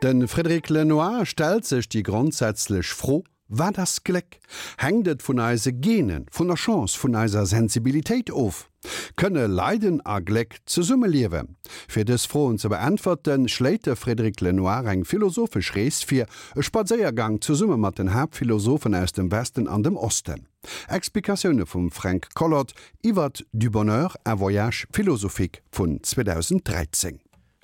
De Frédéric Lenoir stellt sech déi grondsätzlech Fro, Wat ass Gléck? Hänkt et vun eise Genen, vun der Chance, vun eiser Sensibilitéit of? Kënne Leiden a Gléck zesummeliewen? Fir dës Froen ze beäntwerten, schléit de Frédéric Lenoir eng philosophesch Rees vir, e Spadséiergang zesumme mat den Haaptphilosophen aus dem Westen an dem Osten. Explikatioune vum Fränk Collot iwwert Du bonheur, un voyage philosophique vun 2013.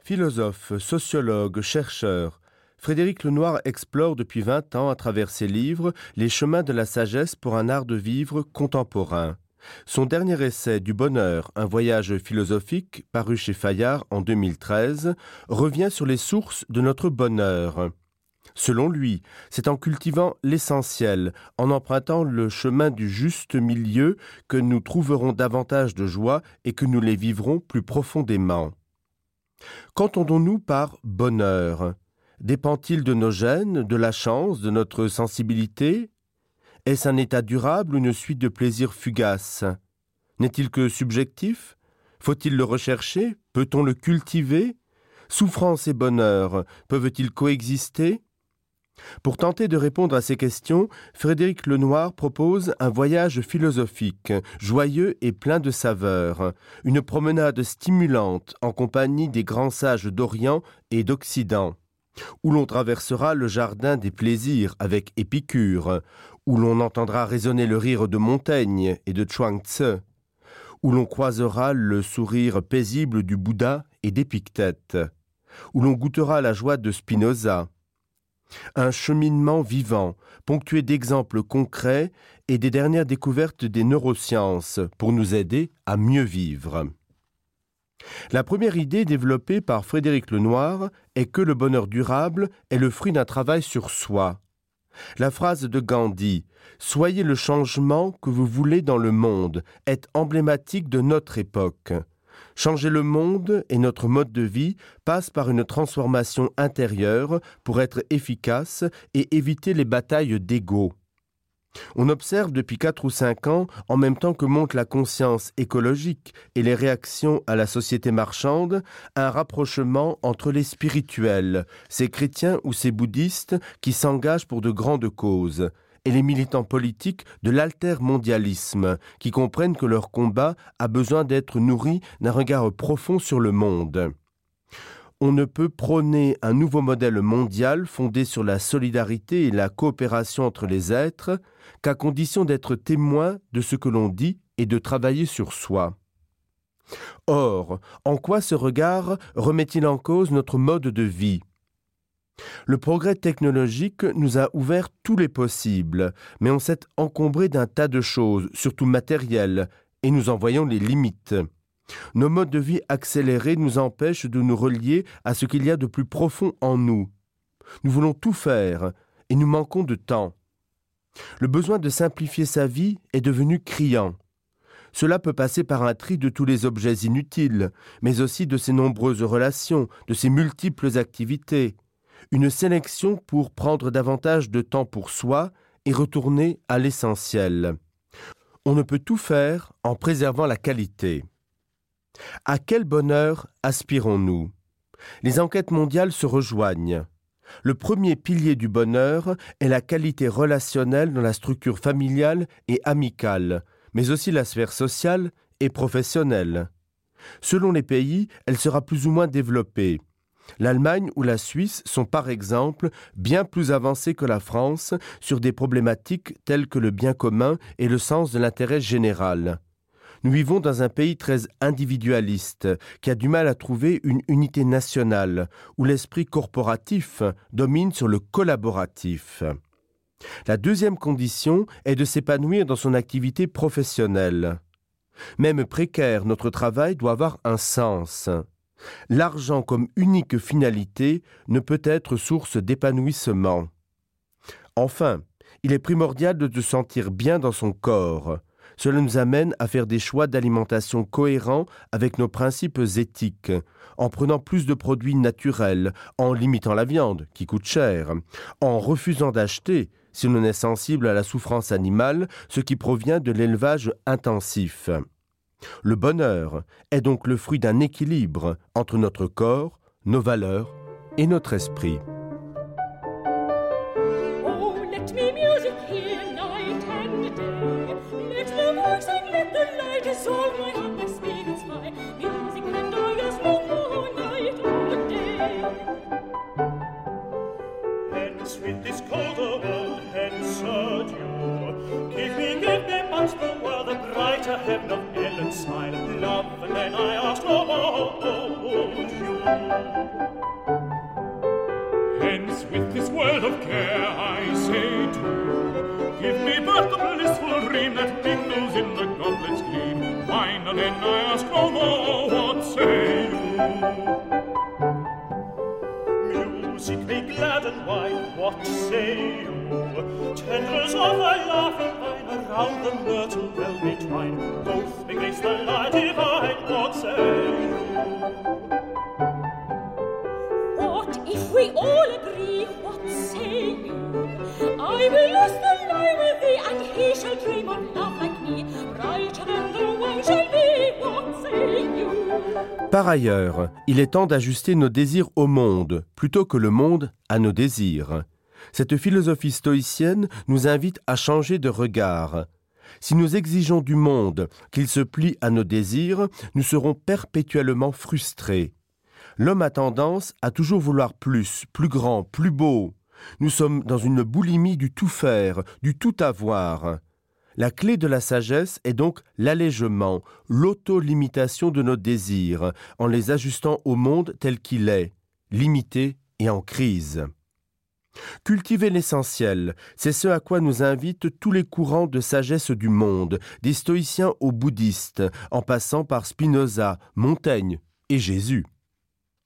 Philosophe, sociologue, chercheur, Frédéric Lenoir explore depuis 20 ans à travers ses livres les chemins de la sagesse pour un art de vivre contemporain. Son dernier essai du bonheur, un voyage philosophique paru chez Fayard en 2013, revient sur les sources de notre bonheur. Selon lui, c'est en cultivant l'essentiel, en empruntant le chemin du juste milieu que nous trouverons davantage de joie et que nous les vivrons plus profondément. Qu'entendons-nous par bonheur Dépend-il de nos gènes, de la chance, de notre sensibilité Est-ce un état durable ou une suite de plaisirs fugaces N'est-il que subjectif Faut-il le rechercher Peut-on le cultiver Souffrance et bonheur peuvent-ils coexister Pour tenter de répondre à ces questions, Frédéric Lenoir propose un voyage philosophique, joyeux et plein de saveurs, une promenade stimulante en compagnie des grands sages d'Orient et d'Occident, où l'on traversera le jardin des plaisirs avec Épicure, où l'on entendra résonner le rire de Montaigne et de Chuang Tse, où l'on croisera le sourire paisible du Bouddha et d'Épictète, où l'on goûtera la joie de Spinoza, Un cheminement vivant, ponctué d'exemples concrets et des dernières découvertes des neurosciences pour nous aider à mieux vivre. La première idée développée par Frédéric Lenoir est que le bonheur durable est le fruit d'un travail sur soi. La phrase de Gandhi Soyez le changement que vous voulez dans le monde est emblématique de notre époque. Changer le monde et notre mode de vie passe par une transformation intérieure pour être efficace et éviter les batailles d'ego. On observe depuis quatre ou cinq ans, en même temps que monte la conscience écologique et les réactions à la société marchande, un rapprochement entre les spirituels, ces chrétiens ou ces bouddhistes qui s'engagent pour de grandes causes, et les militants politiques de l'altermondialisme, qui comprennent que leur combat a besoin d'être nourri d'un regard profond sur le monde. On ne peut prôner un nouveau modèle mondial fondé sur la solidarité et la coopération entre les êtres qu'à condition d'être témoin de ce que l'on dit et de travailler sur soi. Or, en quoi ce regard remet-il en cause notre mode de vie Le progrès technologique nous a ouvert tous les possibles, mais on s'est encombré d'un tas de choses, surtout matérielles, et nous en voyons les limites. Nos modes de vie accélérés nous empêchent de nous relier à ce qu'il y a de plus profond en nous. Nous voulons tout faire et nous manquons de temps. Le besoin de simplifier sa vie est devenu criant. Cela peut passer par un tri de tous les objets inutiles, mais aussi de ses nombreuses relations, de ses multiples activités. Une sélection pour prendre davantage de temps pour soi et retourner à l'essentiel. On ne peut tout faire en préservant la qualité. À quel bonheur aspirons-nous Les enquêtes mondiales se rejoignent. Le premier pilier du bonheur est la qualité relationnelle dans la structure familiale et amicale, mais aussi la sphère sociale et professionnelle. Selon les pays, elle sera plus ou moins développée. L'Allemagne ou la Suisse sont par exemple bien plus avancées que la France sur des problématiques telles que le bien commun et le sens de l'intérêt général. Nous vivons dans un pays très individualiste qui a du mal à trouver une unité nationale où l'esprit corporatif domine sur le collaboratif. La deuxième condition est de s'épanouir dans son activité professionnelle. Même précaire, notre travail doit avoir un sens. L'argent comme unique finalité ne peut être source d'épanouissement. Enfin, il est primordial de se sentir bien dans son corps. Cela nous amène à faire des choix d'alimentation cohérents avec nos principes éthiques, en prenant plus de produits naturels, en limitant la viande, qui coûte cher, en refusant d'acheter, si l'on est sensible à la souffrance animale, ce qui provient de l'élevage intensif. Le bonheur est donc le fruit d'un équilibre entre notre corps, nos valeurs et notre esprit. soul, my heart, my spirit's fire, music and I ask no more night or day. Hence with this colder world, hence adieu. Give me, give me but the world, the brighter heaven of Ellen's smile, love, and then I ask no more, oh, adieu. Hence with this world of care I say to Give me but the blissful dream that mingles in the goblet's gleam Wine and then I ask no more, what say you? Music may gladden wine, what say you? Tendrils of a laughing vine around the myrtle well may twine Both may grace the light divine, what say you? What if we all agree, what say you? I will lose the lie with thee, and he shall dream of love like me, brighter than the one shall be, what say you? Par ailleurs, il est temps d'ajuster nos désirs au monde, plutôt que le monde à nos désirs. Cette philosophie stoïcienne nous invite à changer de regard. Si nous exigeons du monde qu'il se plie à nos désirs, nous serons perpétuellement frustrés. L'homme a tendance à toujours vouloir plus, plus grand, plus beau. Nous sommes dans une boulimie du tout faire, du tout avoir. La clé de la sagesse est donc l'allègement, l'autolimitation de nos désirs, en les ajustant au monde tel qu'il est, limité et en crise. Cultiver l'essentiel, c'est ce à quoi nous invitent tous les courants de sagesse du monde, des stoïciens aux bouddhistes, en passant par Spinoza, Montaigne et Jésus.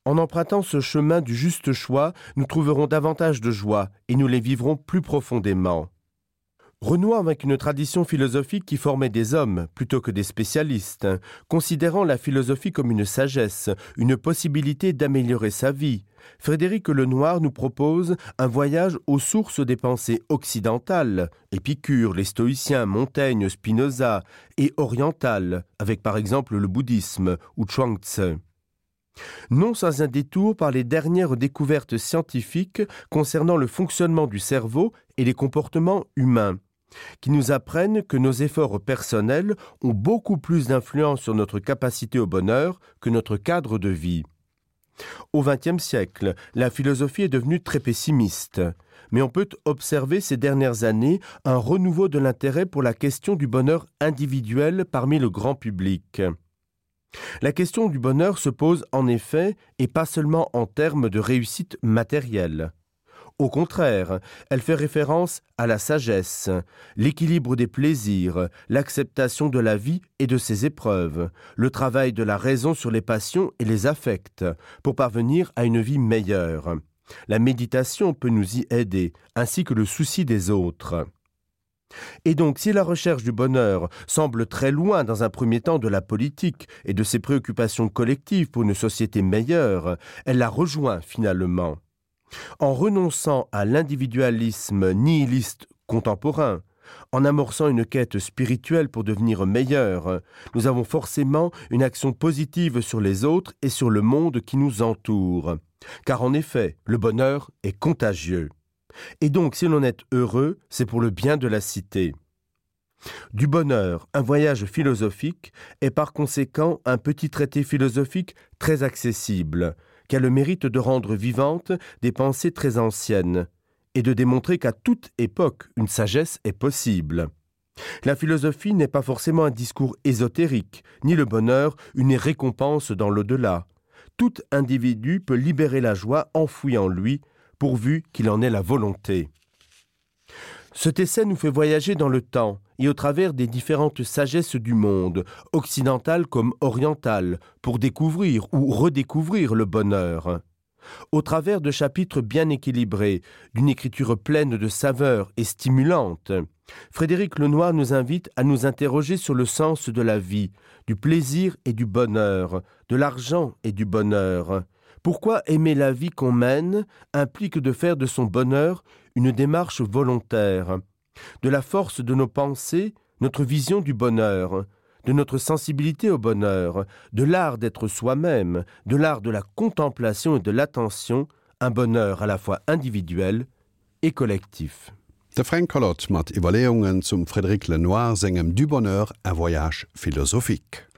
En empruntant ce chemin du juste choix, nous trouverons davantage de joie et nous les vivrons plus profondément. Renouant avec une tradition philosophique qui formait des hommes plutôt que des spécialistes, considérant la philosophie comme une sagesse, une possibilité d'améliorer sa vie, Frédéric Lenoir nous propose un voyage aux sources des pensées occidentales, Épicure, les stoïciens, Montaigne, Spinoza, et orientales, avec par exemple le bouddhisme ou Chuang Tse. Non sans un détour par les dernières découvertes scientifiques concernant le fonctionnement du cerveau et les comportements humains, qui nous apprennent que nos efforts personnels ont beaucoup plus d'influence sur notre capacité au bonheur que notre cadre de vie. Au XXe siècle, la philosophie est devenue très pessimiste, mais on peut observer ces dernières années un renouveau de l'intérêt pour la question du bonheur individuel parmi le grand public. La question du bonheur se pose en effet et pas seulement en termes de réussite matérielle. Au contraire, elle fait référence à la sagesse, l'équilibre des plaisirs, l'acceptation de la vie et de ses épreuves, le travail de la raison sur les passions et les affects, pour parvenir à une vie meilleure. La méditation peut nous y aider, ainsi que le souci des autres. Et donc si la recherche du bonheur semble très loin dans un premier temps de la politique et de ses préoccupations collectives pour une société meilleure, elle la rejoint finalement. En renonçant à l'individualisme nihiliste contemporain, en amorçant une quête spirituelle pour devenir meilleur, nous avons forcément une action positive sur les autres et sur le monde qui nous entoure. Car en effet, le bonheur est contagieux. Et donc si l'on est heureux, c'est pour le bien de la cité. Du bonheur, un voyage philosophique est par conséquent un petit traité philosophique très accessible, qui a le mérite de rendre vivante des pensées très anciennes et de démontrer qu'à toute époque une sagesse est possible. La philosophie n'est pas forcément un discours ésotérique, ni le bonheur une récompense dans l'au-delà. Tout individu peut libérer la joie enfouie en lui, pourvu qu'il en ait la volonté. Cet essai nous fait voyager dans le temps et au travers des différentes sagesses du monde, occidentales comme orientales, pour découvrir ou redécouvrir le bonheur. Au travers de chapitres bien équilibrés, d'une écriture pleine de saveurs et stimulante, Frédéric Lenoir nous invite à nous interroger sur le sens de la vie, du plaisir et du bonheur, de l'argent et du bonheur. Pourquoi aimer la vie qu'on mène implique de faire de son bonheur une démarche volontaire, de la force de nos pensées, notre vision du bonheur, de notre sensibilité au bonheur, de l'art d'être soi-même, de l'art de la contemplation et de l'attention, un bonheur à la fois individuel et collectif. De Fränk Collot mat Iwwerleeungen zum Frédéric Lenoir sengem Du bonheur, un voyage philosophique.